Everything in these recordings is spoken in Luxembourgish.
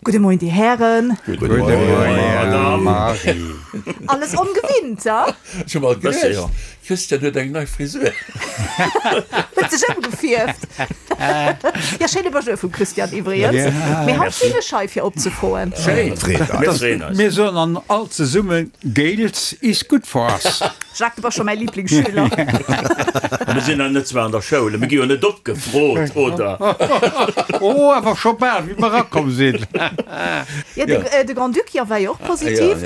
Gudde Moien, Dir Hären. Gudde Moien, Marie. Alles ongewinnt, ha? Ech hu mol geduecht, Christian huet eng nei Frisur. Huet sech ëmgefierft. Jo, schéine Bonjour vum Christian iwwregens. Mee haut sinn ech hei fir opzefroen. Schéin, mir freeën eis. Mir soen an all zesummen, Gales is good for us. Jacques, du bass scho mäi Lieblingsschüler. Mir sinn nach net zwar an der Schoul, mir gi jo net opgefrot, oder? Oh, awer scho bal, wéi mer erakomm sinn. Jo, de Grand-Duc, jo, war jo och positiv.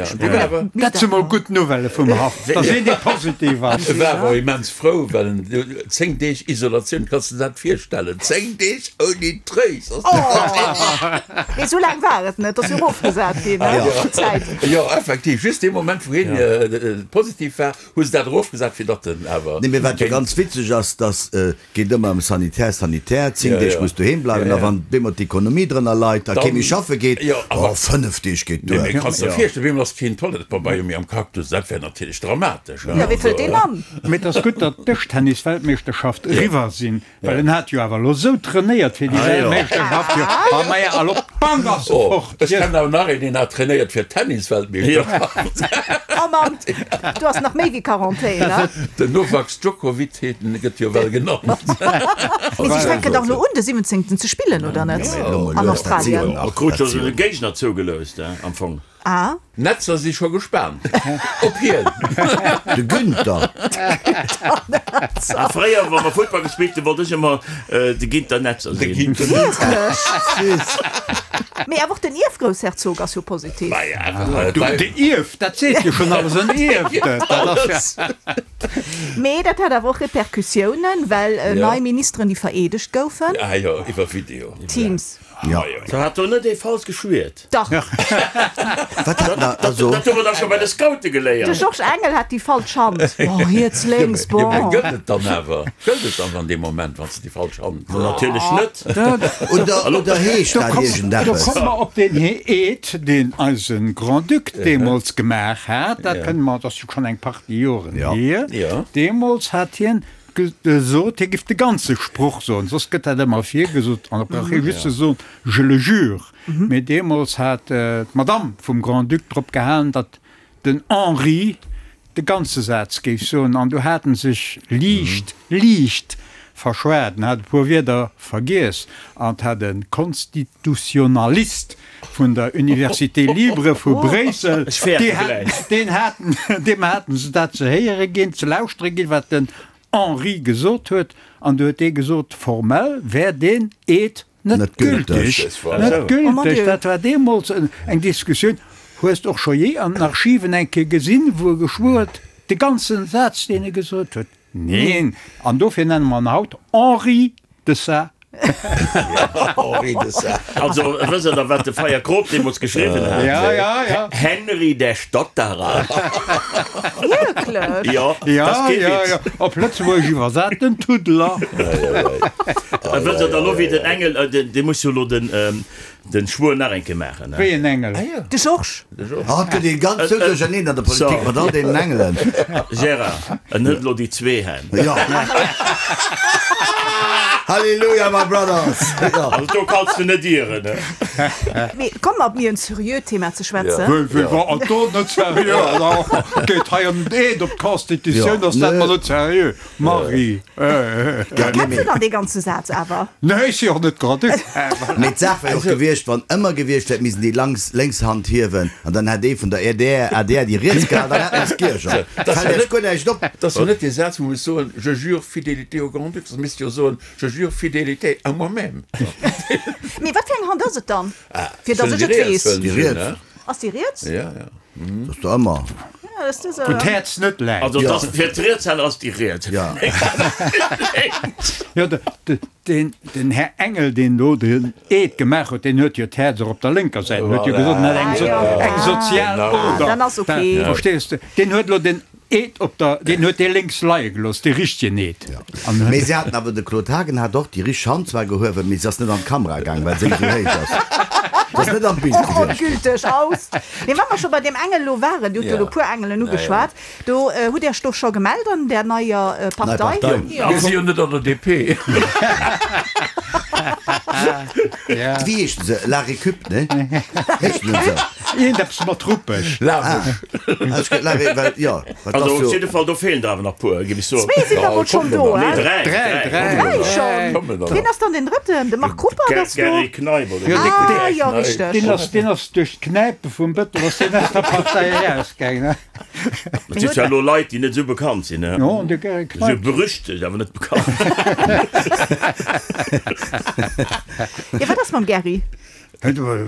Dat si mol gutt Nouvellë vum Haff, dass een dee positiv ass. E war awer immens frou, well en 10 Deeg Isolatioun, kanns de dat virstellen? 10 Deeg ouni Tréis! Mee esou laang war et net, ass jo erofgesat ginn, ne, d'Zäit. Jo, effektiv, just dee Moment, wou hien positiv war, hu se dat erofgesat, fir datt en awer. Nee, mee wat jo ganz witzeg ass, dass et geet ëmmer ëm Sanitär, Sanitär, 10 Deeg muss doheem bleiwen, a wann bemol d'Ekonomie drënner leit a kee méi schaffe geet, oh, 5 Deeg geet duer. Nee, mee kanns der virstellen, bemol ass keen Toilettepabeier méi am Cactus, dat wär natierlech dramatesch. Jo, wéi fëllt deen an? Mee et ass gutt, datt d'Dëschtennis-Weltmeeschterschaft eriwwer sinn, Well en hat jo awer elo sou trainéiert fir déi Weltmeeschterschaft, jo, a maja, a lo bang ass e fort. Ech kennen awer nach een, deen hat trainéiert fir d'Tennisweltmeeschterschaft. Oh Mann, do ass nach méi wéi Quarantän, ne? Den Novak Djokovic heet en, gëtt jo well genannt. Mee si fänken dach elo un de 17. ze spillen, oder net? An Australien. Krut jo sou e Géigner zougeloust, am Fong. Ah. D'Netzer si scho gespaant op hien. De Günther. A fréier, wa mer Futtball gespillt hunn, wollt ech ëmmer de Ginter Netzer De sinn. Ginter Netzer. Süß. Mee awer och den Ierfgroussherzog ass jo positiv. Du, de Ierf, dat seet jo schonn alles, en Ierfte, dat ass ja. Mee dat hat awer och Repercussiounen, well nei Ministeren, déi vereedegt goufen. Ah jo, iwwer Video. Teams. Jo. Da hat do net ee falsch geschwiert? Dach. Wat hat na also? Dat hu mer dach scho bei de Scoute geléiert. De Georges Engel hat déi falsch Hand. Oh, riets, lénks, Jo, mä bon. gëllt et dann awer? Gëllt et dann an deem Moment, wann s de déi falsch Hand. Natierlech net. Oder, oder heescht dat Do iergendeppes? komme mer op deen Eed, deen eise Grand-Duc deemools gemaach hat. Dat kënne mer, dat ass jo schonn eng Partie Joren hier. Deemools hat hien Gesot, hie giff de ganze Sproch soen, soss gëtt dat ëmmer virgesot an da brauch hie just ze soen, je le jure. Mee deemools hat d'Madame vum Grand-Duc drop gehalen, datt den Henri de ganze Saz géif soen an du hat en sech liicht, liicht verschwat, en hat e puer Wierder vergiess an 't hat e Konstitutionalist vun der Université Libre vu Bréissel, deen haten, deem haten se dat ze héiere ginn, ze lauschtere ginn, wat den Henri gesot huet, an du huet dee gesot, formell wär deen Eed net gültig. Net gültig! Dat war deemools eng Diskussioun. Hues de och scho jee an den Archiven eng Kéier gesinn, wou e geschwuer huet, de ganzen Saz, deen e gesot huet? Neen! An dofir nenne mer en haut Henri de Sa. Henri de Sa. Also, wësst Der wat de Feyer Kroop deemools geschriwwen hat? Ja, ja, ja. Henry der Stotterer. Wierklech? Jo, dat ass kee Ja, ja, Witz. ja. Op Lëtzebuergesch iwwersat, den Tuddler. Wësst Der dann elo, wéi den Engel, dee muss jo elo den, Den Schwuer nach eng Kéier maachen, ne? Wéi en Engel? De Georges. Haut gëtt ee ganz sou duercherneen an der Politik mat all deenen Engelen. Gérard, en huet elo déi zwee Hänn. Jo. Halleluja, my brothers! Jo. Also do kanns de net ieren, ne? Mee komm mer op méi en serieux Thema ze schwätzen. Wéi, wéi, wa an do net serieux? Alors, geet hei ëm den Eed op d'Constitutioun, ass dat mer net serieux? Marie, Kenns de dann dee ganze Saz awer? Nee, ech si och net grad du. Mee d'Saach wär och gewiescht, wann ëmmer gewiescht wär, et missten déi lanks lénks Hand hiewen an dann hätt ee vun der adr adr déi riets gehal, dann hätt mer es giergert. Fält Iech guer näischt op. Dat ass jo net dee Saz, wou muss soen, Je jure fidélité au Grand-Duc, da misst jo soen, Je jure fidélité à moi-même. Mee wat fir eng Hand ass et dann, fir datt ech et weess? Déi riets. Ass déi riets? Ja, ja. Dat ass der ëmmer. Ja, dat ass Wou d'Häerz net läit. Also dat ass fir d'Rietshänner ass déi riets. Ja. Jo, de, den, den Här Engel, deen do den Eed gemaach huet, deen huet jo d'Häerz och op der lénker Säit. En huet jo gesot, en hätt eng, so, eng sozial Oder. Dann ass ok. Verstees de? Deen huet elo den Eed op der, deen huet dee lénks leie gelooss, dee richtegen Eed. An Mee se haten awer, de Claude Haagen hat och déi richteg Hand zwar gehuewen, mee se ass net an d'Kamera gaang, well se esou héich ass. Se ass net am Bild Och gewiescht. ongülteg aus. Mee wa mer scho bei deem Engel elo waren, Dir hutt jo elo e puer Engelen ugeschwat, do hutt Iech do scho gemellt an där neier Nei Partei? Partei. Mir si jo net an der DP. Wéi heeschen se? La Récup, ne? Heeschen se esou? Iergendeppes mat Ruppeg. Lamesch. La Ré, well, jo, wat ass jo. Also op jidde Fall, do feelen der awer nach puer, géif ech soen. Zwee sinn der mol schonn do, Nee, dräi. Dräi, dräi. Dräi schonn. Wien ass dann deen drëtten? De Marc Ruppert ass do. Gerry Kneip, oder? Ah, jo, richteg. Deen ass, deen ass duerch d'Knäipe vum Bëttel ass deen aus der Partei erausgaangen. Et si zwar elo Leit, déi net esou bekannt sinn, ne? Jo, an de Gerry Esou Kneip. berüchtegt, awer net bekannt. Jo, wat ass mam Gerry?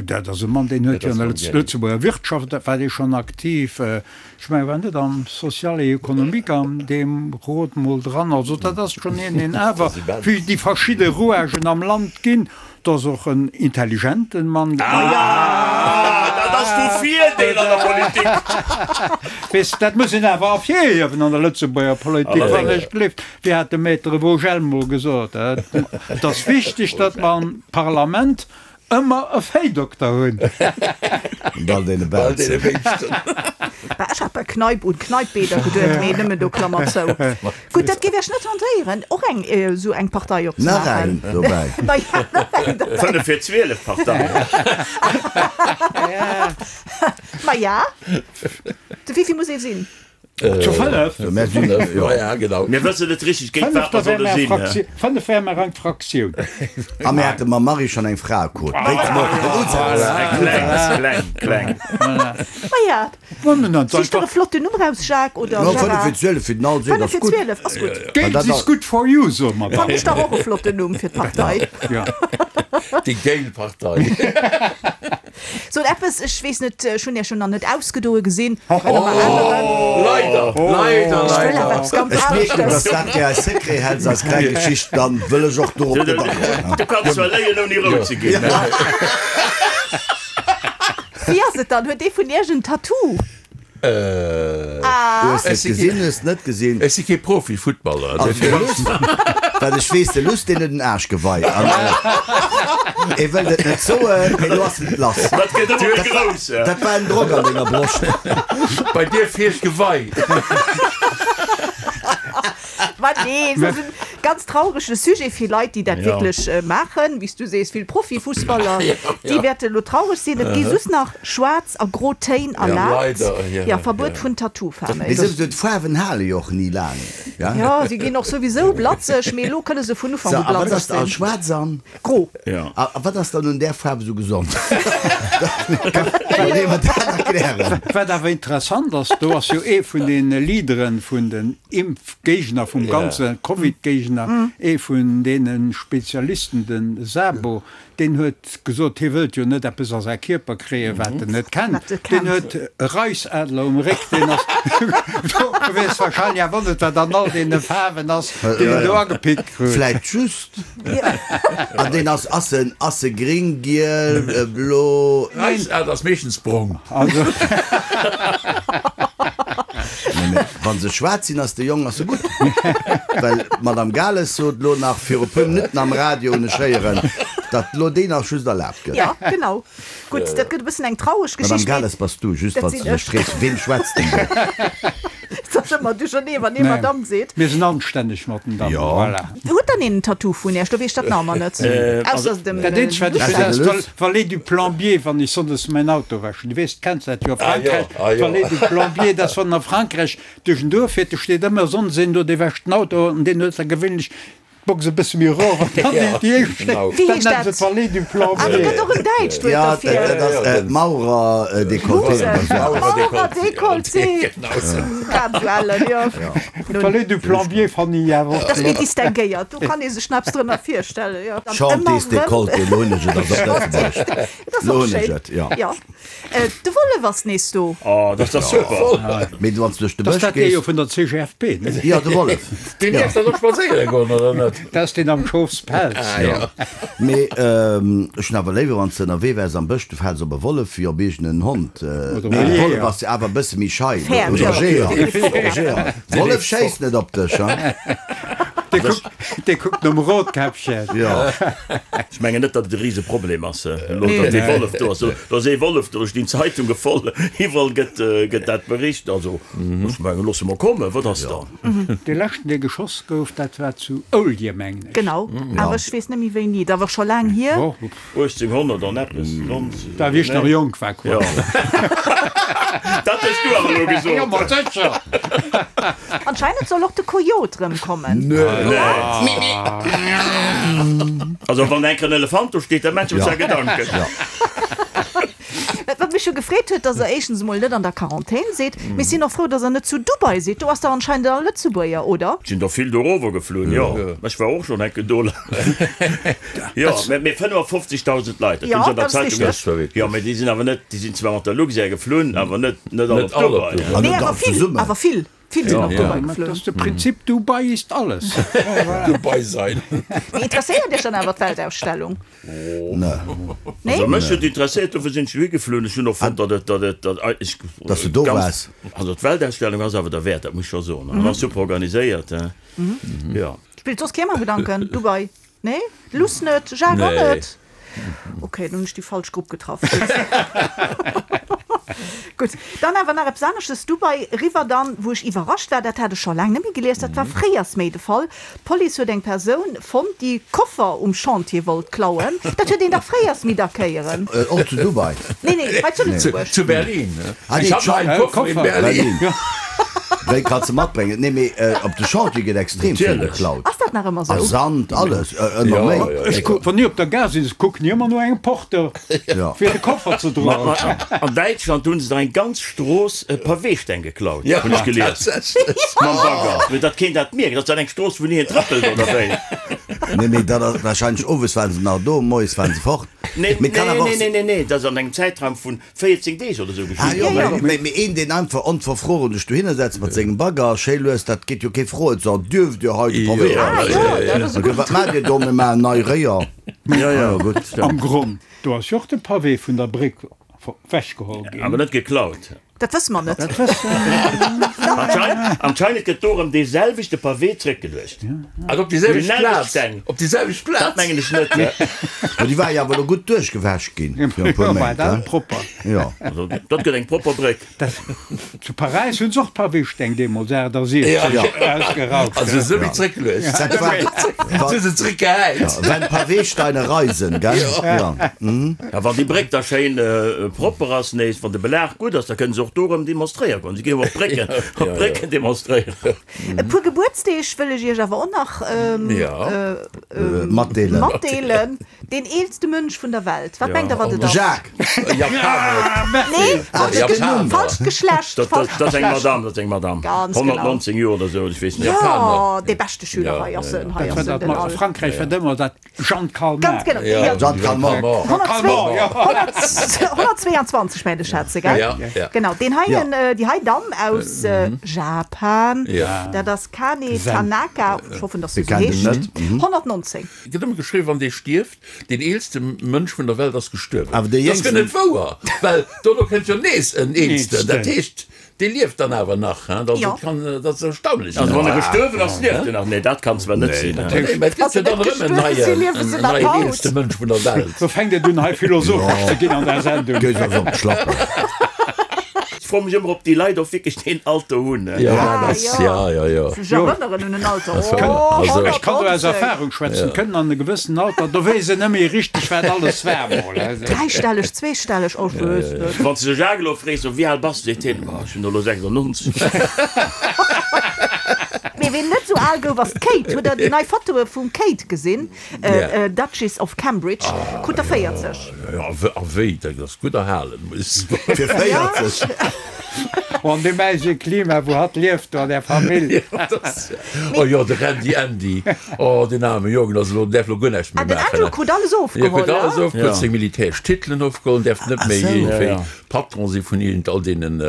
Dat ass e Mann, deen huet jo an der Lëtzebuerger Wirtschaft, war dee schonn aktiv. Ech mengen, war net am Social et économique an deem Rot mol dran. Also dat ass schonn een, deen awer wéi déi verschidde Rouagen am Land ginn. Dat ass och en intelligenten Mann. Ah, dat ass vu Virdeel an der Politik. Weess, dat muss een awer ervirhiewen an der Lëtzebuerger Politik, wann ech gleeft. Wéi hat de Maître Vogel mol gesot, Et ass wichteg, datt mer am Parlament ëmmer e Véidokter hunn. Und all deene Belzen. Bah, ech hat bei Kneipp un Kneippbäder geduet, mee nëmmen do, Klammer zou. Gutt, dat géif Iech net tentéieren, och eng esou eng Partei opzemaachen? Nach eng dobäi. Ma ja, nach eng dobäi. 5 fir 12 Partei. Ma ja, de wéivill muss ee sinn? Zu 5? Ja, genau. Mir wëssen net richteg géint wat mer solle sinn. 5 wäre mer eng Fraktioun. A mir hate mam Marie schonn eng Fraequot. Wéi zum och den Usaz. Kleng, kleng, kleng. Ma ja, sich der e flotten Numm raus, Jacques oder No, 5 Gérard. fir 12 fir den Alsee, 5 dat ass fir gutt. 12 ass gutt. Geld is good for you, soe mer dann. Fannen ech dach och e flotten Numm fir d'Partei. Ja. Déi géil Partei. Sot eppes, ech weess net, ech hunn Iech jo nach net ausgedoe gesinn. Kënne mer änneren? Leider, leider, Ech wëll awer leider. eppes ganz Ech mierken, aneschters. dass dat gär eis Secret häls, eis kleng Geschicht, dann wëll ech och dorop net agoen. Du kanns zwar léien ouni rout ze ginn. Wéi ass et dann, huet ee vun Iech en Tattoo? Hues de et gesinn, hues de net gesinn? Ech si kee Profi-Futtballer. Also de Luss, wat ech weess, de Luss deen huet en Aarschgewei an e wëllt et net soen, mee lo ass et lass. Dat gëtt ëmmer méi grouss. Dat war en Drock an denger Broscht. Bei dir feelt d'Gewei. Ma nee, et ass en ganz traurege Sujet fir Leit, déi dat wierklech maachen. Wéi s du sees, vill Profifussballer, déi wäerte lo traureg sinn. Et gi just nach schwaarz a gro Téin erlaabt. Jo, Verbuet vun Tattoo-Faarwen. Mee souwisou, d'Faarwen hale jo och ni laang. Jo, si ginn och souwisou blatzeg, mee elo kënne se vun Ufank u blatzeg sinn. Schwaarz an? Gro. A wat ass dann un där Faarf esou gesond? Kann ee mer dat erklären? Wat awer interessant ass, do ass jo ee vun de Leaderen vun den Impfgéigner, vum ganze Covid-Géigner, ee vun deene Spezialisten, de Sabo, deen huet gesot, hie wëllt jo net eppes a säi Kierper kréien, wat en net kennt. Deen huet e Reisadler um Réck, deen ass do gewiescht, wahrscheinlech awer net, wat an all deene Faarwen ass, deen en do agepickt krut. Vläicht just. An deen ass, ass en, ass e gring, giel, blo? Reisadler ass meeschtens brong. Also. Nee, mee wann se schwaarz sinn, ass de Jong ass se gutt. Well d'Madame Gales sot lo nach viru puer Minutten am Radio, hunn ech héieren, datt lo deen nach just erlaabt gëtt. Ja, genau. Gutt, dat gëtt e bëssen eng traureg Madame Geschicht, mee Gales bass du, just dat wann s sinn du dech ech. frees, weem schwätzt den do? Et ass ëmmer duerchernee, wann ee Madame seet. Mir sinn anstänneg mat den Dammen, Jo. voilà. Huet dann een en Tattoo vun Iech? Do weess ech dat nach ëmmer net. Ausser dem Dat eenzegt, wat ech Lucien. weess, ass d'Vallée du Plombier, wann ech sonndes mäin Auto wäschen. Du weess, kenns dat jo a Frankräich, d'Vallée du Plombier, dat ass, wann en a Frankräich duerch en Duerf fiert, do steet ëmmer sonndes een do, dee wäscht den Auto an deen huet da gewéinlech d'Box e bësse méi erof an dann déi déi éischt Stéck, Wéi dat heescht nennen se dat? d'Vallée du Ah, do Plombier. gëtt och en däitscht Wuert Ja, derfir. dat ass Maurer-Dekolleté oder esou. Maurer-Dekolleté. Grad esou ellen, jo. D'Vallée du Plombier fannen ech awer och Dat ass méi flott. distinguéiert, do kann ee sech nach eppes drënner virstellen, jo. Dann ëmmer Chantiers rëm. Décolleté, lo hunn ech et, ass op Lëtzebuergesch. Dat ass Lo och hunn ech schéin. et, jo. Jo. De Wollef ass nees do. Oh, dat ass dach super! Mee wann s du duerch de Dat ass Bësch dat dee jo gees. vun der CGFP, ne? Jo, de Wollef. Deen dierf dann och spadséiere goen, oder net? Dat ass deen am Schofspelz. Ah jo. Mee ech hunn awer léiwer, wann s de ënnerwee wäers am Bësch, du fäls op e Wollef wéi op iergend en Hond. Oder Mee e de Wollef Jeeër. ass jo awer e bësse méi schei. Fair, Oder jo. Jeeër. Jeeër. Wollef schéisst net op dech, hein? Dee kuckt nom Rotkäppchen. Jo. Ech mengen net, datt et e Riseproblem ass elo, datt dee Wollef do ass. Do ass ee Wollef do, ech ginn d'Zeitunge voll, iwwerall gëtt, gëtt dat bericht. Also ech mengen, loosse mer kommen, wat ass dann? Dee leschten, dee geschoss gouf, dat war zu Oulje, mengen ech. Genau, awer ech weess net méi wéini. Dat awer scho laang hier. 1800 an eppes, 90. Da wéi ech nach jonk war, quasi. Dat hues du awer elo gesot. Jo, ma sécher. Anscheinend soll och de Coyote rëmkommen. Also wann enk en Elefant do steet, da maacht ech mer zwar Gedanken. Wat mech jo gefreet huet, dass der éischtens emol net an der Quarantän sidd, mee ech sinn och frou, dass der net zu Dubai sidd. Do ass der anscheinend all Lëtzebuerger, oder? Sinn der vill dorower geflunn, jo. Ech war och schonn enke do. Jo, mee 55.000 Leit, dat hunn se an der Zeitung gesinn. Jo, mee déi sinn awer net, déi sinn zwar mat der Luxair geflunn, awer net net all op Dubai. Nee, awer vill, awer vill, vill sinn op Dubai geflunn. Dat ass de Prinzip Dubai ist alles. Dubai sein. Mee interesséiert Iech dann awer d'Weltausstellung? Nee? Also mech huet interesséiert, dofir sinn ech dohi geflunn. Ech hunn och fonnt, datt et, datt et, datt eigentlech Datt du do ganz, waars. also d'Weltausstellung ass awer derwäert, dat muss ech scho soen. An ass super organiséiert, hein. Jo. Spillt soss kee mam Gedanken? Dubai? Nee? Luss net? Jacques och net? Ok, dann hunn ech déi falsch Grupp getraff. Gutt. Gutt, dann awer nach eppes aneschtes, Dubai eriwwer dann, wou ech iwwerrascht war, dat hat ech scho laang net méi gelies, dat war fréiers méi de Fall, D'Police huet eng Persoun fonnt, déi Koffer um Chantier wollt klauen. Dat huet een dach fréiers méi dacks héieren. Och zu Dubai? Nee, nee, hei zu Lëtzebuerg. Zu Berlin. Ich hab noch einen Koffer in Berlin. Wéi kanns de matbréngen? Nee, mee op de Chantier gëtt extrem vill geklaut. Ass dat nach ëmmer sou? A Sand, alles, ëmmer méi. Ech kuck, wann ech op der Gare sinn, kucken ech ëmmer no engem Porteur, fir de Koffer ze droen. An Däitschland hunn se der eng ganz Strooss Paweesteng geklaut, hunn ech gelies. Mam Bagger, fir datt keen dat mierkt. Ass dat eng Strooss, wou ni een trëppelt, oder wéi? Nee, mee dat ass warscheinlech, owes waren se nach do, moies waren se fort. Nee, nee, nee, nee, nee, dat ass an engem Zäitraum vun 14 Deeg oder sou geschitt. Ah jo, mee, mee een, deen einfach onverfroren sech dohinner setzt mat sengem Bagger, schéi lues, dat geet jo kee froen, so, Dierft Dir hei de Pavé raushuelen? Wat maacht Dir do? Mir maachen nei Réier. Jo, jo, gutt. Am Gronn, do ass jo och de Pavé vun der Bréck wechgeholl ginn. Awer net geklaut. Dat wësse mer net. Anscheinend gëtt do erëm dee selwechte Pavé zréckgeluecht. Also op déi selwecht Plaz? Op déi selwecht Plaz? Dat mengen ech net. Ma déi war jo awer elo gutt duerchgewäsch ginn fir e puer Méint, he? Propper. Jo. Also dat gëtt eng propper Bréck. Zu Paräis hunn se och d'Pavésteng deemools 68 ausgerauft. Also se wéi zréckgeluecht. Dat war, Se hu se zréckgehäit. Wenn Pavésteine reisen, gell? Jo. A wann déi Bréck da schéin propper ass nees, wann de Belag gutt ass, da kënne se och do erëm demonstréiere goen. Si ginn jo op d'Brécken, op d'Brécken demonstréieren. E puer Gebuertsdeeg wëll ech Iech awer och nach Matdeelen. matdeelen. Deen eelste Mënsch vun der Welt, wat mengt Der, wat et ass? Jacques! Japaner. Nee, falscht, falscht Geschlecht. Dat, dat, dat ass eng Madame, dat ass eng Madame. Ganz genau. 119 Joer oder sou, ech weess net. Jo, dee beschte Schüler hei ass en, hei Dat ass war en, dat den mat Al. Frankräich war ëmmer dat Jeanne Calment. Ganz genau. Ja, Jeanne Calment. 122 mengen ech hat se, gell? Ja, ja. Genau, deen heien, déi hei Damm aus Japan, Ja. dat ass Kane Tanaka, ech hoffen, dass se Mir esou kennen den heescht, net. 119. Et gëtt ëmmer geschriwwen, wann dee stierft, deen eelste Mënsch vun der Welt ass gestuerwen. Awer dee Dat ass guer jéngsten. net wouer, well dono kënnt jo nees en Eelsten. Dat heescht, dee lieft dann awer nach. Hein? Also, Jo. et kann, dat ass erstaunlech. Also wann e gestuerwen ass, lieft en nach. Nee, dat kann zwar net sinn. Nee, mä et gëtt jo dann erëm en neien, en neien eelste Mënsch vun der Welt. Lo fänkt et un hei philosophesch ze ginn an der Sendung. Gees eis op d'Schlappen. Ech froe mech ëmmer, ob déi Leit och wierklech deen Alter hunn. Jo, Ah, dat ass, jo. ja, ja, jo. Sech erënneren un en Alter. Also, Oh, also. Ech kann do aus 119. Erfahrung schwätzen, kënnen an e gewëssen Alter, do weess een net méi richteg, wat alles war mol. Dräistelleg, zweestelleg, oh, ech weess net. Wann s de de Jacques elo frees, so, wéi al bass de, seet hien, oh, ech hunn elo 96. Mee ween net esou al gouf, ass d'Kate. Hutt der déi nei Fotoe vum Kate gesinn? Duchess of Cambridge, krut der 40. Jo, a wéi, dat ass gutt erhalen, muss ech soen. Fir 40. Oh, an deem äisege Klima, wou hatt lieft, do an där Famill. Oh jo, de Randy Andy, oh, deen aarme Jong, ass elo, däerf elo guer näischt méi Ah, den maachen. Andrew krut alles Jo, ofgeholl, krut alles ne? ofgeholl, seng militäresch Titelen ofgeholl, däerf net méi iergendwéi Patron si vun iergend all deenen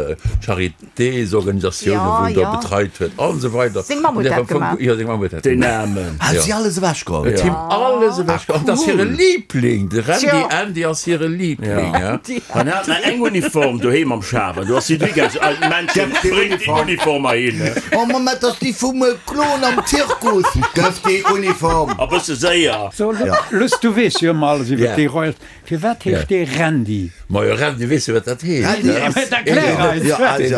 Charitésorganisatiounen, wou en do betreit huet an esou weider. Seng Mamm huet dat gemaach. Jo, seng Mamm huet dat Deen gemaach. Aarmen. Hat si alles ewechgeholl? Huet him alles ewechgeholl. An dat ass hire Liebling, de Randy Andy ass hire Liebling. An hat nach eng Uniform doheem am Schaf an do ass si dri. Aus alten Männchen, bréngt déi Uniform heihin. Oh Mamm, dat ass déi vum Klon am Zirkus. Gëff déi Uniform. A bësse séier. So, Luss, du weess jo ëmmer alles iwwer déi Royals. Firwat heescht dee Randy? Majo, Randy, weess jo, wat dat heescht. Randy ass. Mä erklär eis. Jo, also, jo,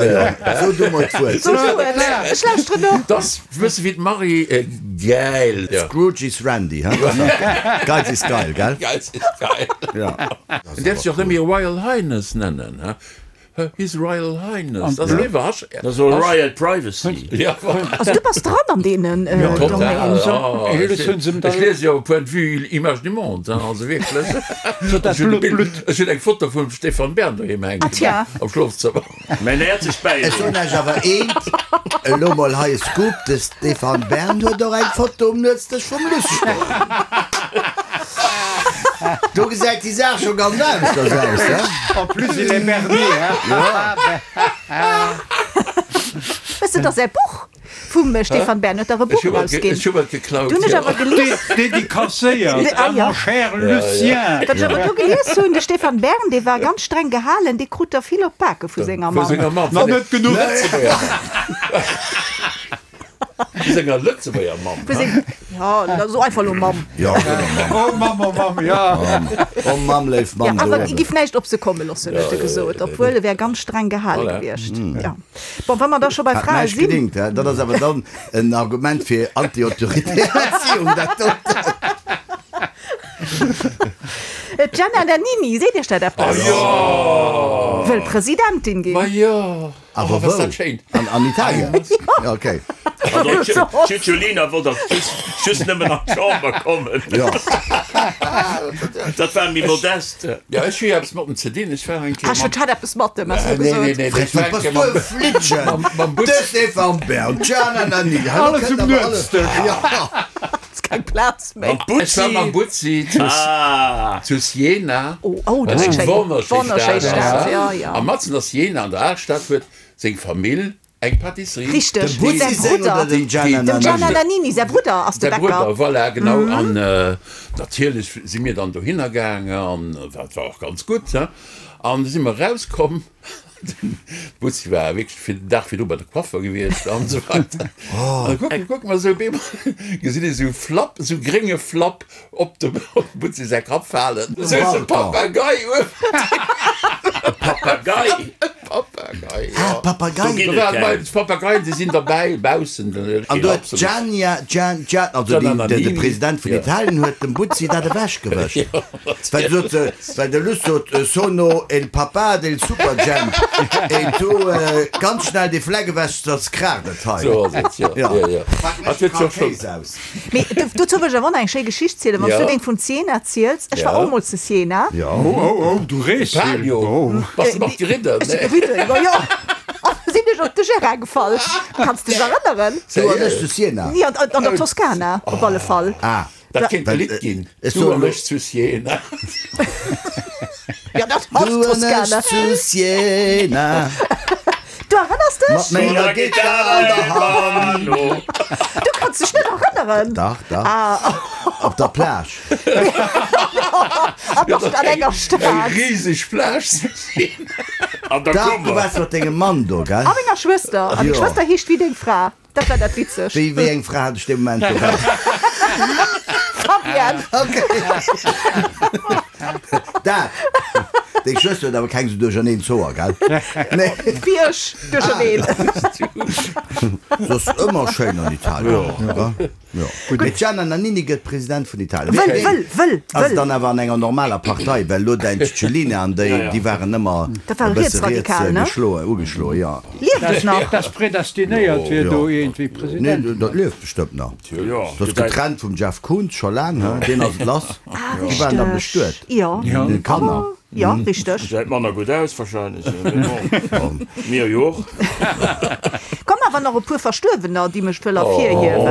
so du mol d'Wuert. So du et, ech lauschteren no. Dat ass e bësse wéi d'Marie Gäil. Scrooge is Randy, he? Geiz is geil, gell? Geiz is geil. Ja. En däerf sech och net méi Royal Highness nennen, he? His Royal Highness. Dat ass eriwwer. Hasch. Dat ass Royal Privacy. Ja, voilà. Also du bass dran an deenen Domaine. Total. Ech liese jo Point de vue Image du monde, hein, also wierklech. Ech hunn eng Foto vum Stéphane Bern doheem hänken am Schlofzëmmer. Mäin häerzegt Bäileed. Ech soen Iech awer eent, elo mol hei e Scoop, de Stéphane Bern huet och eng Foto um Nuetsdësch vum Luss stoen. Do gesäit déi Saach scho ganz aneschters aus, he? En plus il est berné, hein? Weess de, dass säi Buch vum Stéphane Bern huet dach e Buch erausginn. Ech hu et geklaut, Do hunn ech awer gelies. Dédicacéiert à mon cher Lucien. Wat ech awer do gelies hunn, de Stéphane Bern, dee war ganz streng gehalen, dee krut der vill op d'Bake vu senger Mamm. Vu senger Mamm. Nach net genuch. Vu senger Lëtzebuerger Mamm. Vu seng, jo, da so einfach elo Mamm. Jo, so elo Mamm. Oh Mamm, oh Mamm, jo. Oh Mamm, léif Mamm. Jo, awer e giff näischt op se komme loossen, huet e gesot, obwuel e wär ganz streng gehale gewiescht. Jo. Bon, wa mer da scho bei Hat Frae näischt sinn. gedingt, hä? Dat ass awer dann en Argument fir anti-autoritär Erziehung, dat doten. D'Gianna Nannini, seet Iech dat eppes? Jo! Wëll Presidentin ginn. Ma jo! Awer Oh, was dat wou? schéin. An, an Italien? Ja, okay. Also, d'Cicciolina wollt dach just, just nëmmen an d'Chamber kommen. Ja. Dat war méi modest. Ja, ech hu jo eppes mat em ze dinn. Ech war eng Kéier Ech mam. hat eppes mat em, has du Nee, nee, gesot. nee, ech war eng Bass Kéier du e mam, Flittchen? mam, mam De Butz. Stéphane Bern, d'Gianna Nannini, hallo, Alles kënnt um awer alles. Nuetsdësch. Ja. Ass keng Plaz méi. Mam Ech war mam Butzi. Butzi zu, Ah. zu Siena. Oh, oh, dat Dat ass ass eng schéin. wonnerschéi Wonnerschéi Stad ass Stad, dat. ja, ja. A matzen a Siena, an der Alstad, huet seng Famill eng Pâtisserie. Richteg, Dem Butzi säi seng Brudder. oder dem Gianna Dem Nannini? Gianna Nannini säi Brudder ass de Säi Bäcker. Brudder, voilà, genau. An natierlech si mir dann dohinner gaangen, an dat war och ganz gutt, he. An du si mer erauskomm, den Butzi war wierklech fir den Dag virdru bei de Coiffer gewiescht an esou weider. An da kucke, kucke mer esou, op eemol gesinn ech esou Flapp, esou grénge Flapp op dem Butzi säi Kapp falen. Esou e Papagei uewen. E Papagei? E Papagei, jo. Ah, Papagei. Do ginn Do et waren keng. bei d'Papageien, déi sinn derbäi baussen. An do huet d'Giannia, Gian, Gian, also Gianna déi, de, de Nannini. President vun Ja. Italien huet dem Butzi dat ewechgewëscht. Ja, Well sot se, well de Luss sot, Sono il papà del Superjhemp e tu ganz schnell dee Fleck ewech, soss kraacht et hei. Sou ass et, jo. Ja. Jo, jo. Pak Hat mech huet jo kal schon. Kéis aus. Mee dozou wëll ech awer och nach eng schéi Geschicht zielen, wann s du Ja. deng vun Siena ziels. Ech war Ja. och mol zu Siena. Ja. Oh, oh, oh, du rees vill. Palio. Oh. Bass de mat geridden? Ech si geridden, jo, jo. An du sinn ech op de Gérard gefall. Kanns dech erënneren? Du an ech zu Siena? Nee, an, an der Toskana op alle Fall. Ah. Dat kéint e Lidd ginn, Ech Du soen an elo. ech zu Siena. Ja, dat ass Du an ech Toskana. zu Siena. Du erënners dech? Mat menger Gittar an der Hand. Du kanns dech net erënneren? Dach, dach. Ah. Op der Plage. An nach an enger Stad. Eng riseg Plage zu Siena. An der Dach, du Kummer. waars mat dengem Mann do, gell? A menger Schwëster. A meng Jo. Schwëster heescht wéi deng Fra. Dat war dat Witzegt. Wéi, wéi eng Fra hat ech dee Moment do? Fabienne. Okay. Dat. Deng Schwëster huet awer keng sou duercherneen Zoer, gell? Nee. Wéi ech, duercherneen. Soss ëmmer schéin an Italien. Ja. Jo. Mee d'Gianna Nannini gëtt President vun Italien. Wëll, wëll, wëll, Ass wëll. dann awer an enger normaler Partei, well elo däin Cicciolina an déi, déi waren ëmmer Dat ware e bësse riets Rietsradikal, ne? geschloen, ugeschloen, jo. Lieft et nach? Dass predestinéiert wier, do iergendwéi Nee, President. dat lieft bestëmmt nach. Jo, Dat ass getrennt vum Jeff Koons scho laang, he? Deen ass et lass. Ah, Déi waren da richteg. bestuet. Jo. Déi Kanner. Jo, richteg. Gesäit manner gutt aus wahrscheinlech, mee bon, mir jo och. Komm awer nach e puer Verstuerwener, déi mech wëll ervirhiewen.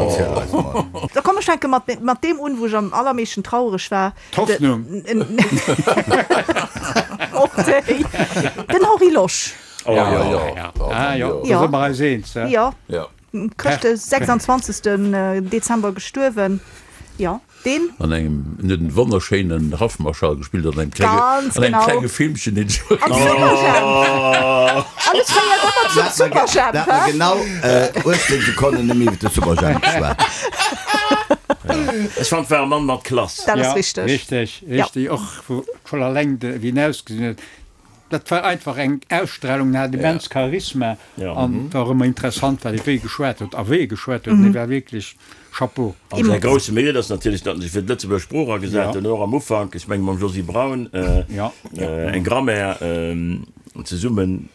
Erziel eis mol. Da komm ech fänke mat mat deem un, wou ech am allermeeschten trauereg war. D'Hoffnung. Och déi. Den Henri Losch. Oh jo. Ah jo, do Jo. si mer eis eens, he? Jo. Jo. Chrëscht de 26. Dezember gestuerwen. Jo. Deen? An engem, en huet en wonnerschéinen Haffmarschall gespillt an engem klenge, Ganz an engem genau. klenge Filmchen, deen ech Am Superjhemp! Alles féiert ëmmer zum Superjhemp, Dat mer hä? genau 18 Sekonnen nëmme iwwer de Superjhemp geschwat. Ech fand, war e Mann mat Klass. Dat ass Ja, richteg. richteg, Ja. richteg. Och schonn alleng de, wéi en ausgesinn huet. Dat war einfach eng Ausstrahlung, en hat immens Charisma an et war och ëmmer interessant, wat e wéi geschwat huet a wéi e geschwat huet. En war wierklech Chapeau. An säi grousse Mérite ass natierlech, datt en sech fir d'Lëtzebuerger Sprooch agesat huet, och am Ufank, ech menge mam Josy Braun, eng Grammaire zesummen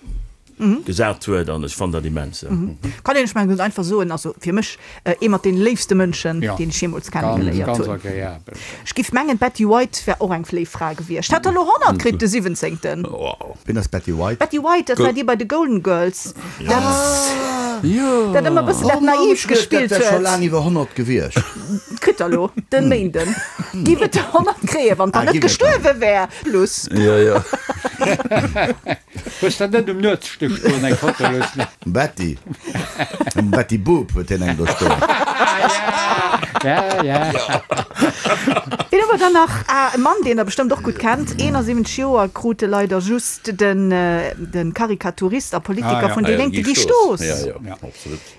gesat huet an ech fannen dat immens. Kann een, ech mengen, ganz einfach soen, also fir mech ee mat deene léifste Mënschen, deen ech jeemools kennegeléiert hunn. Ech giff mengen, d'Betty White wär och eng léif Fra gewiescht. Hat der elo 100 kritt de siwwenzéngten. Wien ass d'Betty White? D'Betty White, dat war déi bei de Golden Girls, dat dat ëmmer e bëssen dat naiv gespillt Dat wär scho huet. laang iwwer 100 gewiescht. Kritt der elo den Méinden. Giff et 100 kréien, wann der net gestuerwe wär. Plus. Hues der net um Nuetsstéck stoen eng Foto loossen? Um Betty, um Betty Boop huet hien eng do stoen. Ja, ja. Wien hu mer dann nach? Ah, e Mann, deen der bestëmmt och gutt kennt. 71 Joer krut e leider just, den de Karikaturist a Politiker vun déi Lénk, de Guy Stoos.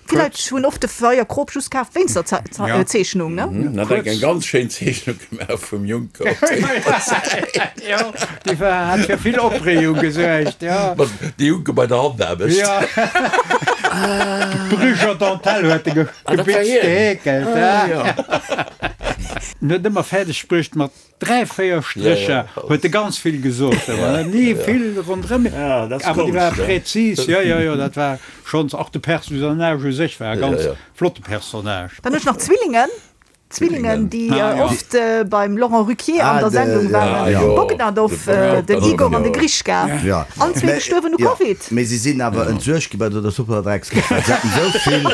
Vill Leit hunn oft de Feier Krop just kaf wéinst der Zeechnung, ne? En hat eng ganz schéin Zeechnung gemaach vum Juncker op der Säit. Jo, déi war, hat fir vill Opreegung gesuergt, jo. Mat de Juncker bei der Handaarbecht. Jo. D'Brücher Dentelle huet e gebitzt, geheekelt, ja. En huet ëmmer fäerdeg bruecht mat 3, 4 Strécher huet e ganz vill gesot, awer ni vill ronderëm, awer déi war präzis, jo, jo, jo, dat war schonns, och de Personnage u sech war e ganz flotte Personnage. Dann hunn ech nach Zwillingen, Zwillingen, déi oft beim Laurent Ruquier an der Sendung waren, Bogdanov, den Igor an de Grischka, allen zwee gestuerwen u Covid. Mee si sinn awer entsuergt gi bei der Superdreckskëscht, well se haten esou vill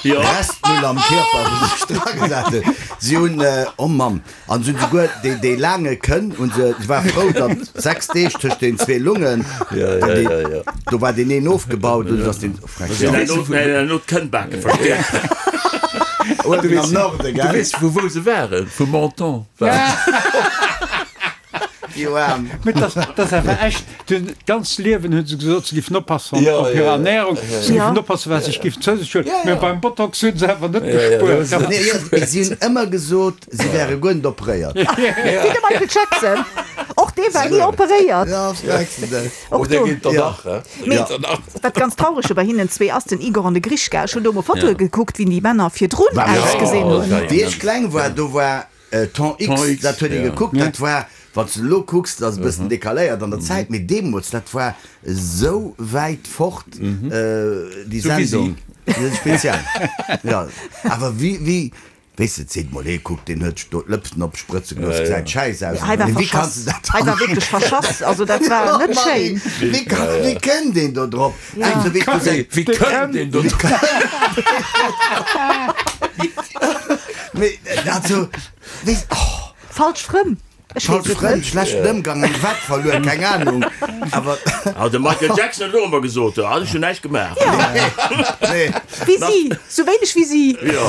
Restmüll am Kierper, wou se sech dragesat hunn. Si hunn, oh Mann, An se hunn souguer déi, déi laange Kënn hunn se, se war frou, datt 6 Deeg tëscht den zwee Lungen, dann déi, do war deen een ofgebaut, dunn ass deen, oh, Si hunn herno, herno d'Kënnbake verstäerkt. Uewen am Norde, Du gell? weess vu wou se waren? Vu Menton waren se. Déi Oarm. Mee dat, dat ass awer echt, d'ganzt Liewen hunn se gesot, se giffen oppassen op hir Ernährung, se giffen oppassen, wat se sech giffen zou sech huelen, mee beim Botox hunn se awer net gespuert. Nee, jo, si hunn ëmmer gesot, si wäre guer net operéiert. Wéi de Michael Jackson, och dee war ni operéiert. Och do. Mee wat ganz traureg bei hinnen zwee ass, den Igor an de Grischka, ech hunn do emol Fotoe gekuckt, wéi déi Männer virdrun ausgesinn hunn. Wéi ech kleng war, do war Temps X, dat huet ee gekuckt, dat war, wann s de elo kucks, dat ass e bëssen decaléiert an der Zäit, mee deemools, dat war esou wäit fort, déi Sendung, speziell, jo, awer wéi, wéi, weess de, et seet mol ee, kuck, deen huet sech do d'Lëpsen opsprëtze gelooss, gesäit schäiss aus, Hei war mee wéi kanns verschass, de dat hei war wierklech verschass, also dat war net schéin. Wéi kann, wéi kënnt een do drop? Wéi kënnt een do drop? Mee also, wéi, oh. Falsch Frënn, ech weess Falsch et Frënn, net. schlechten Ëmgang, eng Wett verluer, keng Ahnung, awer. Ah, de Michael Jackson huet och ëmmer gesot, ah, ech hunn näischt gemaach. Nee. Wéi si, sou wéineg wéi si. Jo.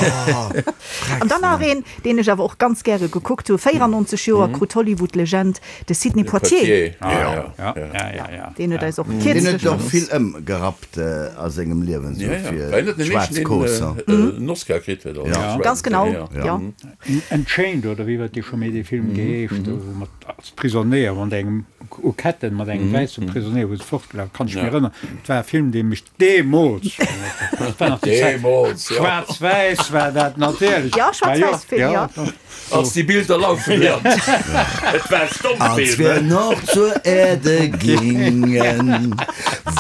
An dann nach een, deen ech awer och ganz gäre gekuckt hu, 94 Joer krut d'Hollywood-Legend, de Sidney Poitier. Ja, ja, ja, ja. Deen huet eis och Deen huet kierzlech och vill ëmgerappt a sengem Liewen, sou fir schwaarz Kooss. En Oscar kritt huet. Ganz genau, jo. Unchained oder wéi huet dee scho méi dee Film geheescht, do wou mat als Prisonéier mat engem u Ketten mat engem wäisse Prisonéier wou se fortgelaf, kann ech mech erënneren. Et war e Film dee mech deemools schonn, dat war nach déi Zäit, schwaarz-wäiss war dat natierlech. Jo, schwaarz-wäiss-Film, jo. Als die Bilder laufen lernt. Et war Stommfilm. Als wir noch zur Erde gingen,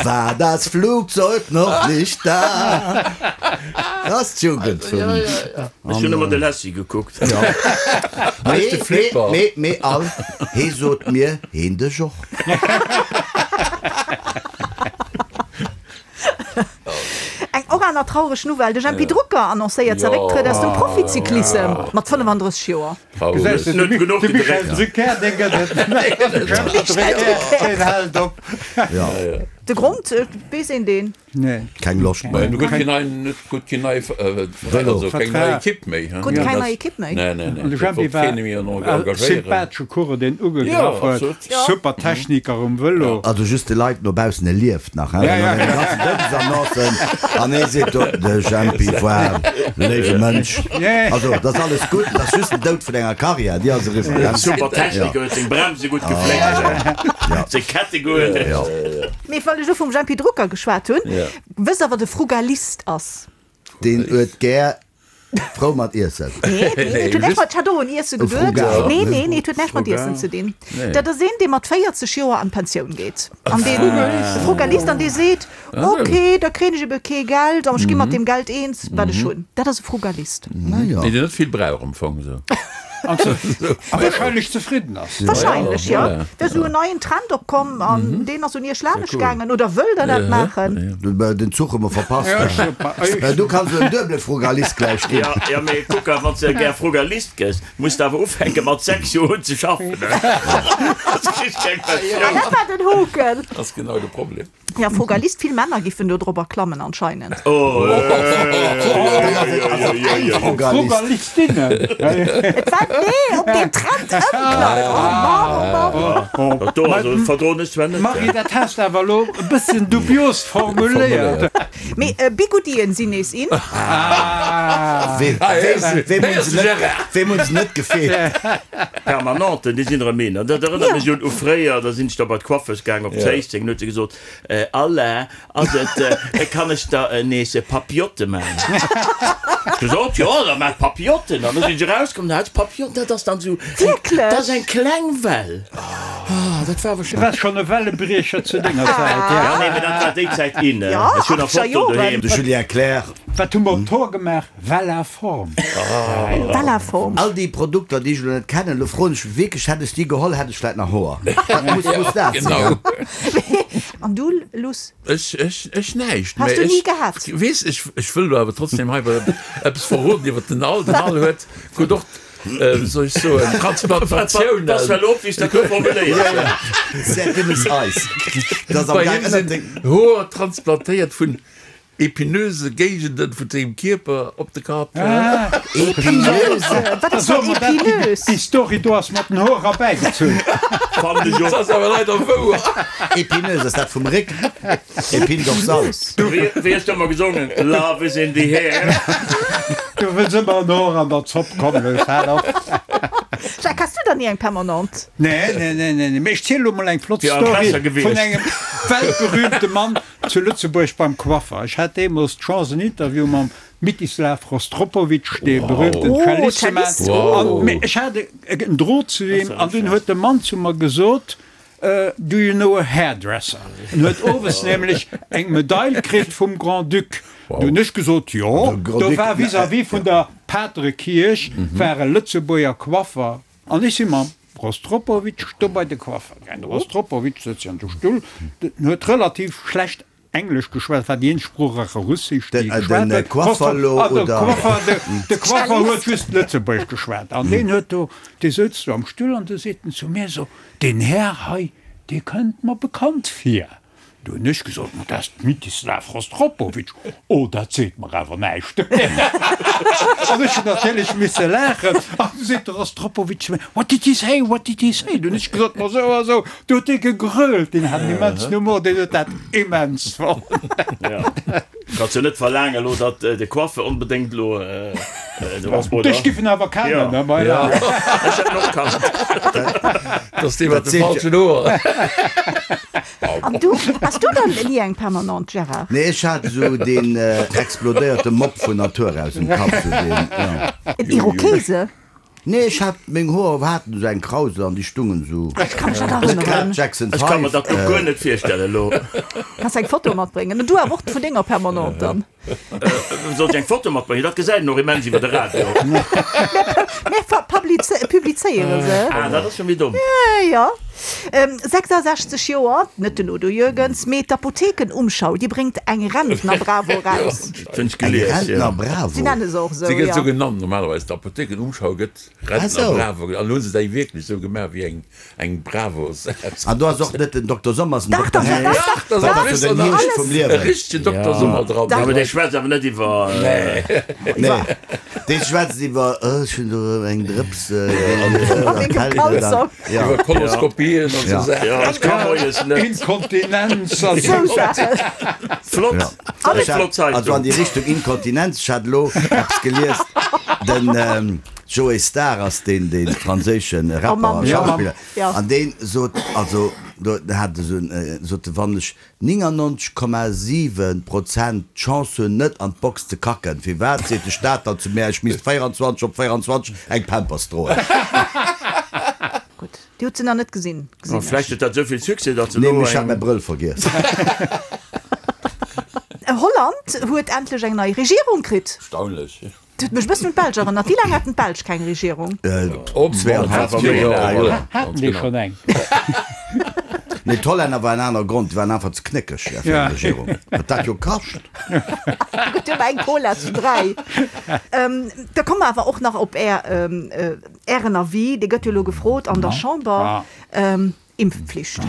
war das Flugzeug noch nicht da. Dat ass d'Jugend vun. Ech hunn ëmmer de Lassie gekuckt. Mee, mee, mee, mee all, hee sot mir, heen dech och. Eng och aner traureg Nouvelle, De Jempy Drucker annoncéiert säi Récktrëtt aus dem Proficyclissem mat 35 Joer. Gesäis de, de Michel Drucker, dee gëtt et net. De Michel Drucker, deen hält op. De Grond, weess een deen? Nee. Keng Loscht méi. Du huet keen neien, net gutt keen neie Veräin, also keng nei Ekipp méi. Krut keng nei Ekipp méi. Nee, nee, nee. An de Jempi war e sympathesche Coureur, deen ugegraff huet. Super Techniker um Vëlo. Also just de Leit no baussen, e lieft nach, hein? Well an deene ganzen Doudesannoncen, an ee seet do, de Jempi war e léiwe Mënsch. Also dat ass alles gutt, dat ass just den Doud vun enger Karriär, déi ass eriwwer, hein? Super Techniker, huet seng Bremse gutt gefléckt, seng Kette gutt. Mee well ech elo vum Jempy Drucker geschwat hunn, wësst der wat e Frugalist ass? Deen huet gär frou mat Iessen. Nee, nee, et huet näischt mat, ech hat och un Iesse geduet. Nee, nee, nee, et huet näischt mat Iessen ze dinn. Dat ass een, dee mat 40 Joer an d'Pensioun geet. An deen, e Frugalist, an dee seet, ok, da kréien ech ebe kee Geld, an ech gi mat deem Geld eens, wat ech hunn. Dat ass e Frugalist. Deen net vill brauch am Fong esou. A wahrscheinlech zefridden ass. Wahrscheinlech, jo. Do ass esou en neien Trend opkomm an deen ass un iech laanescht gaangen. Oder wëllt der dat maachen? Den Zuch hu mer verpasst. Du kanns elo en duebele Frugalist gläich ginn. Jo, jo, mee kuck, a wann s de gär Frugalist gëss, muss de awer ufänke mat 6 Joer un ze schaffen. Soss kriss keng Pensioun. Ah, dat war den Hoken. Ass genau de Problem. Ja, Frugalist, vill Männer giffen do drobber klammen anscheinend. Frugalistinnen. Et war, nee, op deen Trend ëmklammen. Oh Mann, oh Mann. Dat do also verdroen ech zwar net. Marie, dat has de awer elo e bësschen dubios formuléiert. Mee Bigoudien sinn nees in. Weem hunn se net gefeelt? Permanenten, déi sinn erëm in. An dat erënnert mech un u fréier, da sinn ech da bei d'Coiffeuse gaang op Zéisseng, an huet se gesot, Alain, ass et, kann ech der nees Papillotte maachen? Ech gesot, jo, da maach Papillotten. An da sinn ech erauskomm, da hat se Papillotten, dat ass dann esou eng, dat ass eng kleng Well. Ah, dat war awer Du waars schonn e Wellebriecher zu denger Zäit, ja. Ja, nee, mee dat war déi Zäit in. Ech hunn nach Fotoen doheem. De Julien Clerc. Wat hu mer op d'Hoer gemaach? Vella-Form. Vella-Form. All déi Produkter, déi ech elo net kennen, elo froen ech mech wierklech, hätt ech déi geholl, hätt ech vläit nach Hoer. Dat muss, muss dat sinn, Genau. An du, Luss? Ech, ech, ech näischt. Has du ni gehat? Weess, ech, ech wëll elo awer trotzdem hei eppes verroden iwwer den Al. Den Al huet, krut och, wéi soll ech soen, Transplantatiounen. Pass well op, wéi s dat do formuléiers. Sehr dünnes Eis. Dat ass am Bei him gaang sinn Hoer transplantéiert vun Epinöse Géigenden vun sengem Kierper op de Kapp. Epinöse? Wat ass dat Epinös? Déi Story do ass mat den Hoer erbäigezunn. Fannen ech och. Dat ass awer leider wouer. Epinöse, ass dat vum Réck? Épine dorsale. Wéi hues du ëmmer gesongen? Love is in the air. Du wëlls ëmmer en Hoer an der Zopp, komm looss, hal op. Jacques, has du dann ni eng Permanente? Nee, nee, nee, nee, mee ech zielen elo mol eng flott Story vun engem weltberühmte Mann, Zu Lëtzebuerg beim Coiffer. Ech hat deemools d'Chance en Interview mam Mitislav Rostropowitsch, dee berühmten Cellist, ze maachen. An mee ech hat en Drot zu him an dunn huet de Mann zu mer gesot, Do you know a hairdresser? En huet owes nämlech eng Medail kritt vum Grand-Duc. Du hunn ech gesot, Jo. Do war vis-à-vis vun der Paterekierch war e Lëtzebuerger Coiffer an ech si mam Rostropowitsch do bei de Coiffer gaang. De Rostropowitsch sëtzt jo an de Stull, den huet relativ schlecht Englesch geschwat, war déi eenzeg Sprooch a Russesch, déi e geschwat huet. De Coiffer huet just Lëtzebuergesch geschwat an deen huet do, dee souz do am Stull an du seet en zu mir esou, Deen Här hei, dee kënnt mer bekannt vir. Du hunn ech gesot, Ma dat ass d'Mitislav Rostropowitsch. Oh, dat seet mer awer näischt. An ech hunn natierlech misse laachen. An du seet de Rostropowitsch zu mir, What did he say? What did he say? Du hunn ech gesot, Ma esou a esou. Du huet dee gegrölt, deen hat en immensen Humor, deen huet dat immens fonnt. Kanns jo net verlaangen elo, datt de Coiffeur onbedéngt elo do ass, oder? Dech giff en awer kennen, ne? Ma ja. Ech hätt en och kannt. Dat ass dee mat de falschen Hoer. An du, has du dann ni eng Permanente, Gérard? Nee, ech hat esou deen explodéierte Mopp vun Natur aus um Kapp, sou deen, jo. En Irokese? Nee, ech hat, meng Hoer haten esou eng Krausel an déi stungen esou. Ech ka mech net erënneren. Jackson Ech ka mer 5. dat lo guer net virstellen elo. Kanns eng Foto matbréngen. Du awer och vun denger Permanente dann. Soll ech eng Foto matbréngen? Dat gesäit een och immens iwwer de Radio. Mir publizéiere se. Ah, dat ass jo méi domm. Jo. 66 Joer, net den Udo Jürgens, mee d'Apotheken-Umschau, déi bréngt eng Rentner-Bravo eraus. Eng Rentner-Bravo? Si nenne se och esou, Si gëtt jo. esou genannt normalerweis, d'Apotheken-Umschau gëtt Rentner-Bravo genannt. An elo hu se déi wierklech esou gemaach wéi eng Eng Bravo Sätz. An do ass och net den Dokter Sommer, ass den Dokter Hecht. Dach, dach, dach, den Hierscht vum Liewen. E richtegen Dokter Sommer dran. Awer dee schwätzt awer net iwwer. Nee, dee schwätzt iwwer, oh, ech hunn do eng Drëps erkältet. Iwwer Koloskopien an esou Saachen. Jo, ech ka moies net. Inkontinenz an esou Saachen. Flott, dat ass eng flott Zeitung. Also an déi Richtung Inkontinenz, ech hat elo eppes gelies, den. Joey Starr ass deen dee franséische Rapper a Schauspiller an dee sot also do hat esou en sot e wann ech 99,7 Prozent d'Chance hunn net an d'Box ze kacken, firwat seet de Staat dann zu mär ech misst 24 op 24 eng Pampers droen? Gutt, Dir hutt se nach net gesinn, gesinn ech. Vläicht huet dat esou vill Succès, datt se Nee, elo ech hat eng. mäi Brëll vergiess. Holland huet endlech eng nei Regierung kritt. Erstaunlech. Dat huet mech e bëssen un d'Belsch erënnert. Wéi laang haten d'Belsch keng Regierung? Haten déi schonn eng? Nee, d'Hollänner war en aner Grond, déi waren einfach ze knéckeg fir eng Regierung. Wat dat jo kascht! Do gëtt jo ëmmer eng Cola zu 3. Da komme mer awer och nach op Är, Ären Avis, dee gëtt jo elo gefrot an der Chamber. Impfpflicht.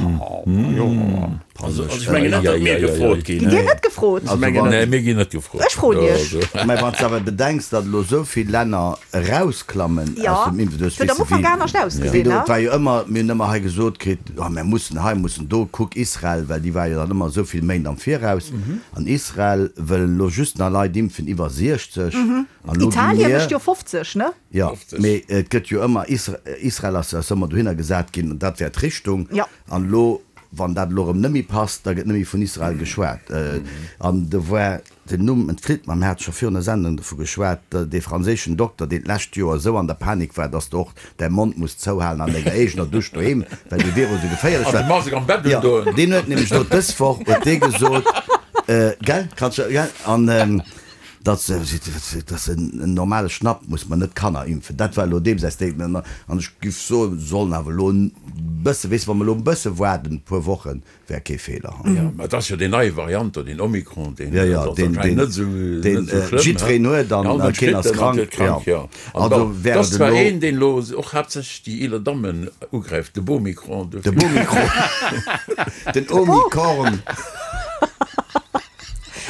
Also ech mengen net, datt mir gefrot ginn. Gitt Dir net gefrot? Nee, mir ginn net gefrot. Ech froen Iech. Mä wann s de awer bedenks, datt elo esou vill Länner erausklammen aus dem Impfen, du hues Jo, et huet am Ufank anescht ausgesinn, ne? Et war jo ëmmer, mir hunn ëmmer hei gesot kritt, oh mir mussen hei, mussen do, kuck Israel, well déi war jo dann ëmmer esou vill Méint am Viraus. An Israel wëllen elo just nach Leit impfen iwwer 60. An elo gi Italien mir. mécht jo 50, ne? Jo, mee et gëtt jo ëmmer, Israel ass ass ëmmer dohinner gesat ginn, dat wär d'Richtung. An elo, wann dat elo erëm net méi passt, da gëtt net méi vun Israel geschwat. An do war, den Numm entflitt mer, mir hate scho virun der Sendung dovu geschwat, dee franséischen Dokter, deen d'lescht Joer esou an der Panik war, dass de och däi Mond muss zouhalen an denger eegener Dusch doheem, well dee Virus esou geféierlech war. Jo, deen huet nämlech elo dës Woch huet dee gesot, gell, kanns du, gell, an. Dat ass en normale Schnapp, muss mer net Kanner impfen. Dat war elo deem säi Statement. An ech giff soen, se sollen awer elo e bësse, weess de, wa mer elo e bësse waarden, e puer Wochen, wär kee Feeler. Jo, mä et ass jo déi nei Variant do, deen Omikron, deen ass anscheinend net esou, net esou schlëmm. Jiddwereen huet an keen ass krank. Jo, also wär et ass zwar een, deen elo och haaptsächlech déi eeler Dammen ugräift, de Bomikron. De Bomikron, den Omikorn.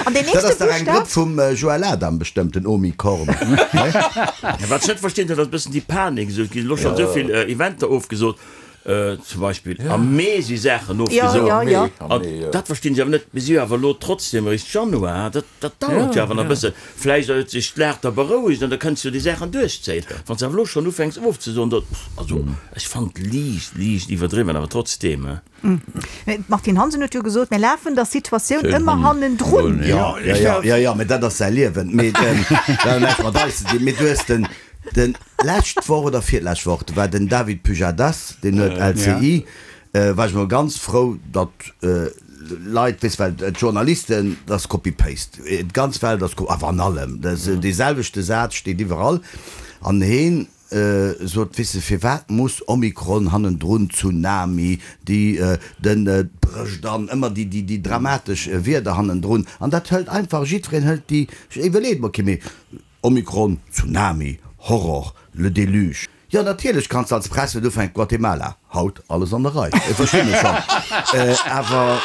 An deen Dat ass nächste dach eng Buschtaf? Grëpp vum Joël Adam bestëmmt, den Omikorn. Wat ech net verstinn, dat ass e bëssen déi Panik esou. Et ginn elo schonn esou vill Eventer ofgesot, zum Beispill am Mee si Saachen ofgesot. Jo, jo, jo. An dat verstinn ech awer net. Mir si jo awer elo trotzdem eréischt Januar, dat, dat dauert jo awer nach e bëssen. Vläicht huet sech d'Lag da berouegt an da kënns du déi Saachen duerchzéien. Wann s de awer elo schonn ufänks ofzesoen, da, also ech fannen et liicht, liicht iwwerdriwwen, awer trotzdeem. D'Martine Hansen huet jo gesot, mir lafen der Situatioun ëmmer hannendrun. Jo, jo, jo, jo, mä dat ass säi Liewen. Mee dat huet näischt mat eis ze dinn. Mee du hues den, den, d'lescht Woch oder virlescht Woch, do war den David Pujadas, deen huet LCI, war ech mol ganz frou, datt Leit, weess, well d'Journalisten, dat ass Copy-Paste, d'ganz Welt ass, awer an allem, dee selwechte Saz steet iwwerall. An heen Sot, Weess de, firwat muss Omikron hannendrun, Tsunami, déi, den, d'brécht an, ëmmer déi, déi, déi dramatesch Wierder hannendrun. An dat hëlt einfach, jiddwereen hëlt déi, iwwerleet mol, okay, mee Omikron, Tsunami, Horror, le déluge. Jo, natierlech kanns de als Press net ufänken, Guatemala, haut alles an der Rei, verstinn ech schonn, awer.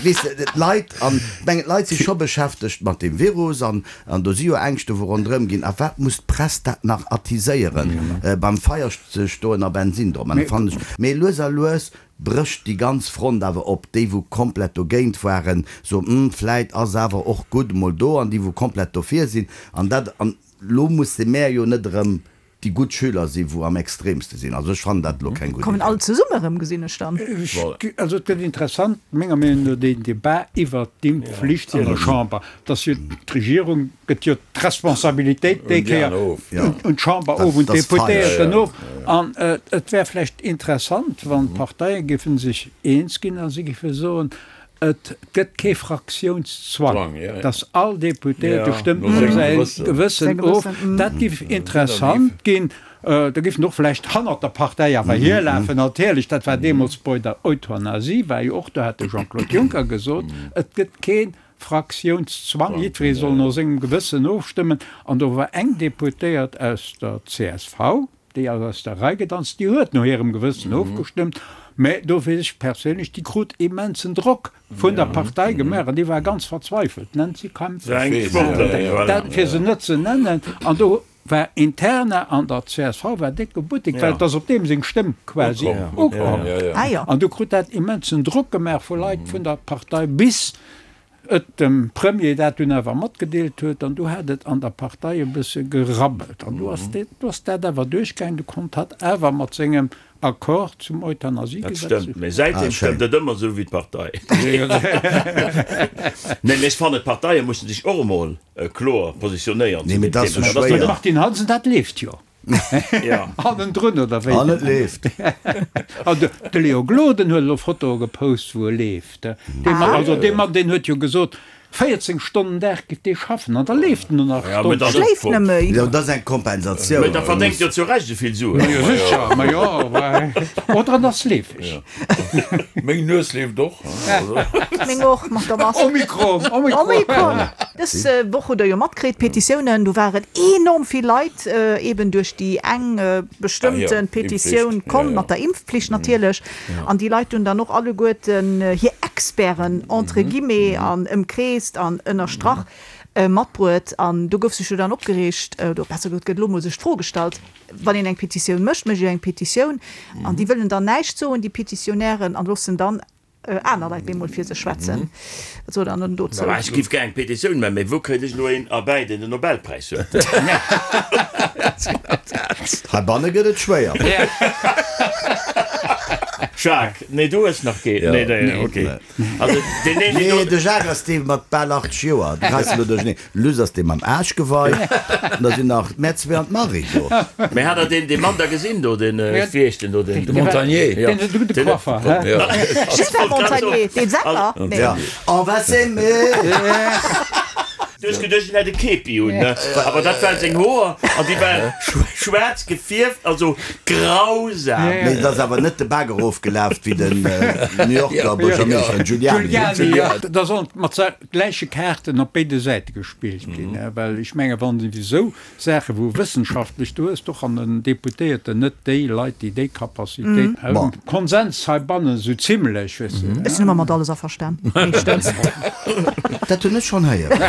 Weess de, d'Leit, an ech mengen, d'Leit si scho beschäftegt mat deem Virus an do si jo Ängschte wou ronderëm ginn. A wat muss d'Press dat nach attiséieren, beim Feier ze stoen a Bensin drop man? Dat fannen ech. Mee lues a lues brécht déi ganz Front awer op. Déi wou komplett dogéint waren, soen, Hm, vläit ass awer och gutt emol do. An déi wou komplett dofir sinn. An dat, an elo musse mär jo net erëm déi gutt Schüler si wou am extremste sinn. Also ech fannen dat elo keng gutt Kommen Idee. all zesumme erëm, gesinn ech dann. Also et gëtt interessant, menger Meenung no, deen Debat iwwert d'Impfflicht an der Chamber. Dass jo d'Regierung gëtt jo d'Responsabilitéit déi Kéier un d'Chamber of, un d'Deputéierten of. An et wär vläicht interessant, wann d'Parteie géife sech eens ginn a si géife soen. Et gëtt kee Fraktiounszwang, dass all Deputéierte stëmmt no säi Gewëssen of. Dat géif interessant ginn. Da géif en och vläicht hannert der Partei awer hierlafen. Natierlech, dat war deemools bei der Euthanasie, war jo och, do hat de Jean-Claude Juncker gesot, et gëtt kee Fraktiounszwang, jiddweree soll no sengem Gewëssen ofstëmmen. An do war eng Deputéiert aus der csv, Déi ass aus der Rei gedanzt, déi huet no hirem Gewëssen ofgestëmmt, mä do weess ech perséinlech, déi krut immensen Drock vun der Partei gemaach an déi war ganz verzweifelt, d'Nancy Kaempfer, dat fir se net ze nennen. An do war interne an der csv war décke Buttek, well et ass op deem seng Stëmm quasi ukomm. An du krut dat immensen Drock gemaach vu Leit vun der Partei bis et dem Premier dat dunn awer matgedeelt huet, an du hat et an der Partei e bësse gerabbelt, an du ass du ass dat awer duerchgaangen, du konnt hatt awer mat sengem Accord zum Dat Euthanasiegesetz. stëmmt, mee säitdeem stëmmt et ëmmer esou wéi d'Partei. Nee, mee ech fannen, d'Parteie mussen sech och emol kloer positionéieren Nee, zu mee deem dat ass Thema. sou Dat ass schwéier. net. Martine Hansen, dat leeft jo. Hannendrun, oder wéi? An et leeft. An de Léo Gloden huet elo Fotoe gepost, wou e leeft. Dee Mann, also dee Mann, deen huet jo gesot, 14 Stonnen Dag giff dee schaffen, an da leeft en no nach Stonnen. Schléift net méi. Jo, dat ass eng Kompensatioun. Mee da verdéngt jo zu Recht esou vill Suen. Ma jo, sécher, ma jo, oder en ass leefeg. Meng Nues leeft och. Meng och, mat der Mask. Omikron, Omikron. Omikron. Dës Woch hutt der jo matkritt, d'Petitiounen, do waren enorm vill Leit eben duerch déi eng bestëmmte Petitioun komm, mat der Impfpflicht natierlech. An déi Leit hunn dann och alleguerten hir Experten, entre guillemets, an ëmkreest an ënnerstrach, matbruet. An do gouf sech jo dann opgereegt, oder besser gesot, gëtt elo mol sech d'Fro gestallt, Wann een eng Petitioun mécht, mécht ee eng Petitioun an déi wëllen dann näischt soen, déi Petitionnairen, an loossen dann aner Leit bemol fir sech schwätzen. Wat sot Der dann dozou? Ech giff gär eng Petitioun man, mee wou kréit ech elo een erbäi, deen den Nobelpräis huet? Heibanne gëtt et schwéier. Jacques, Nee, du hues nach keen? Nee, nee, ok. Also deen een, deen Nee, do. de Jacques ass dee mat bal 80 Joer. Du geheis elo duercherneen. Luss ass dee mam Aarschgewei. An da sinn nach mär zwee an d'Marie do. Mee hat der deen, dee Mann da gesinn do, deen, wéi heescht deen do, deen. De Montagnier. Ja. Deen de gudde Coiffer, hä? Ja. Gilbert Montagnier, dee Sänger? Nee. Ja. On va s'aimer. Du hues geduecht, en hätt e Képi un, ne? Awer dat waren seng Hoer an déi waren schwaarz gefierft, also grausam. Mee et ass awer net de Baak erofgelaf wéi den New Yorker Buergermeeschter Giuliani. Giuliani, ja. Da sollen mat gläiche Kaarten op béide Säite gespillt ginn, well ech menge wann esou Saache wou wëssenschaftlech, du hues doch an den Deputéierten net déi Leit, déi déi Capacitéit hunn. Konsens heibannen esou zimlech, weess de. Ech sinn ëmmer mat alles averstan, meeschtens. Dat hunn ech schonn héieren.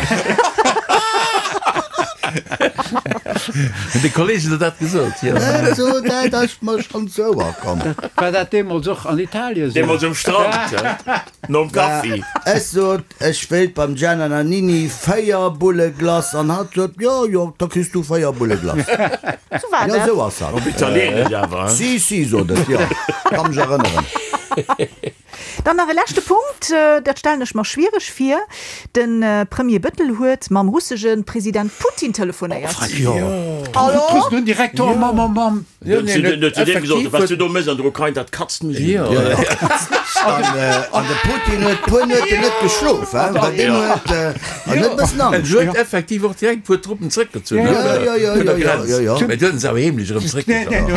Hunn déi Kollegen der dat gesot? Jo. Dat ass mer schonn zu Ouer komm. War dat deemools och an Italien esou? Deemools um Strand, nom Kaffi. Ech sot, Ech wéilt beim Gianna Nannini 4 Bulle Glace an hatt sot, Jo, jo, da kriss du 4 Bulle Glace. Sou war Jo, dat. sou ass hatt. Op Italieenesch awer, hein? Si, si, sot et, jo, ka mech erënneren. Dann nach e leschte Punkt, dat stellen ech mer schwiereg vir, De Premier Bëttel huet mam russege President Putin telefonéiert. Hallo? Den Direktor mam, mam, mam. Jo, nee, en huet zu deem gesot, wat du do méchs an der Ukrain, dat katzt mech un. An de Putin huet puer Nueten net geschlof, well deen huet en huet e bëssen En Angscht. huet effektiv och direkt e puer Truppen zréckgezunn vun der Grenz, mä du huet en se awer heemlech erëm zréckgezunn.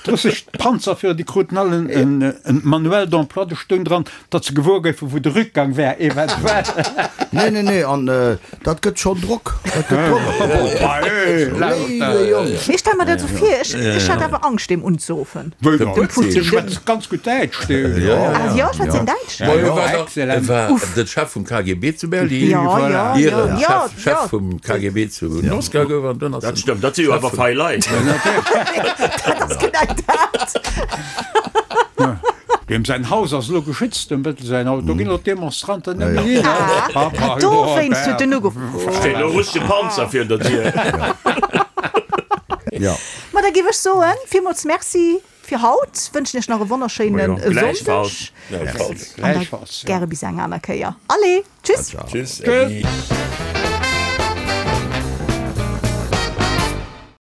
D'russesch Panzerführer, déi kruten all en Manuel d'emploi, do stoung dran, datt se gewuer goufen, wou de Rückgang wär, eventuell. Nee, nee, nee, an dat gëtt schonn Drock. Dat gëtt Drock op de Putin. Léiwe Jong. Mee ech stelle mer dat esou vir, ech, ech hätt awer Angscht, deem unzeruffen. Wéi dann? Dem Putin. Dee schwätzt ganz gutt Däitsch, dee. Ah jo, schwätzt deen Däitsch? Ma hie war dach, Excellent. e war de Chef vum KGB zu Berlin, Jo, jo, jo, ier en jo, Chef, Chef jo. vum KGB zu Moskau gouf an dunn ass Dat en stëmmt, dat si jo Chef awer vum. fei Leit. Dat ass genau dat. Deem säin Haus ass elo geschützt, dem Bëttel säin Haus. Do ginn elo d'Demonstranten net méi hin. Ah, dowéinst huet en ugeruff. Steet elo russesche Panzer virun der Dier. Jo. Ma da géif ech soen, villmools Merci fir haut, wënschen iech nach e wonnerschéine Gläichfalls. Sonndeg Gläichfalls. an da gäre bis eng aner Kéier. Allez, tschüss! Tschüss, Äddi.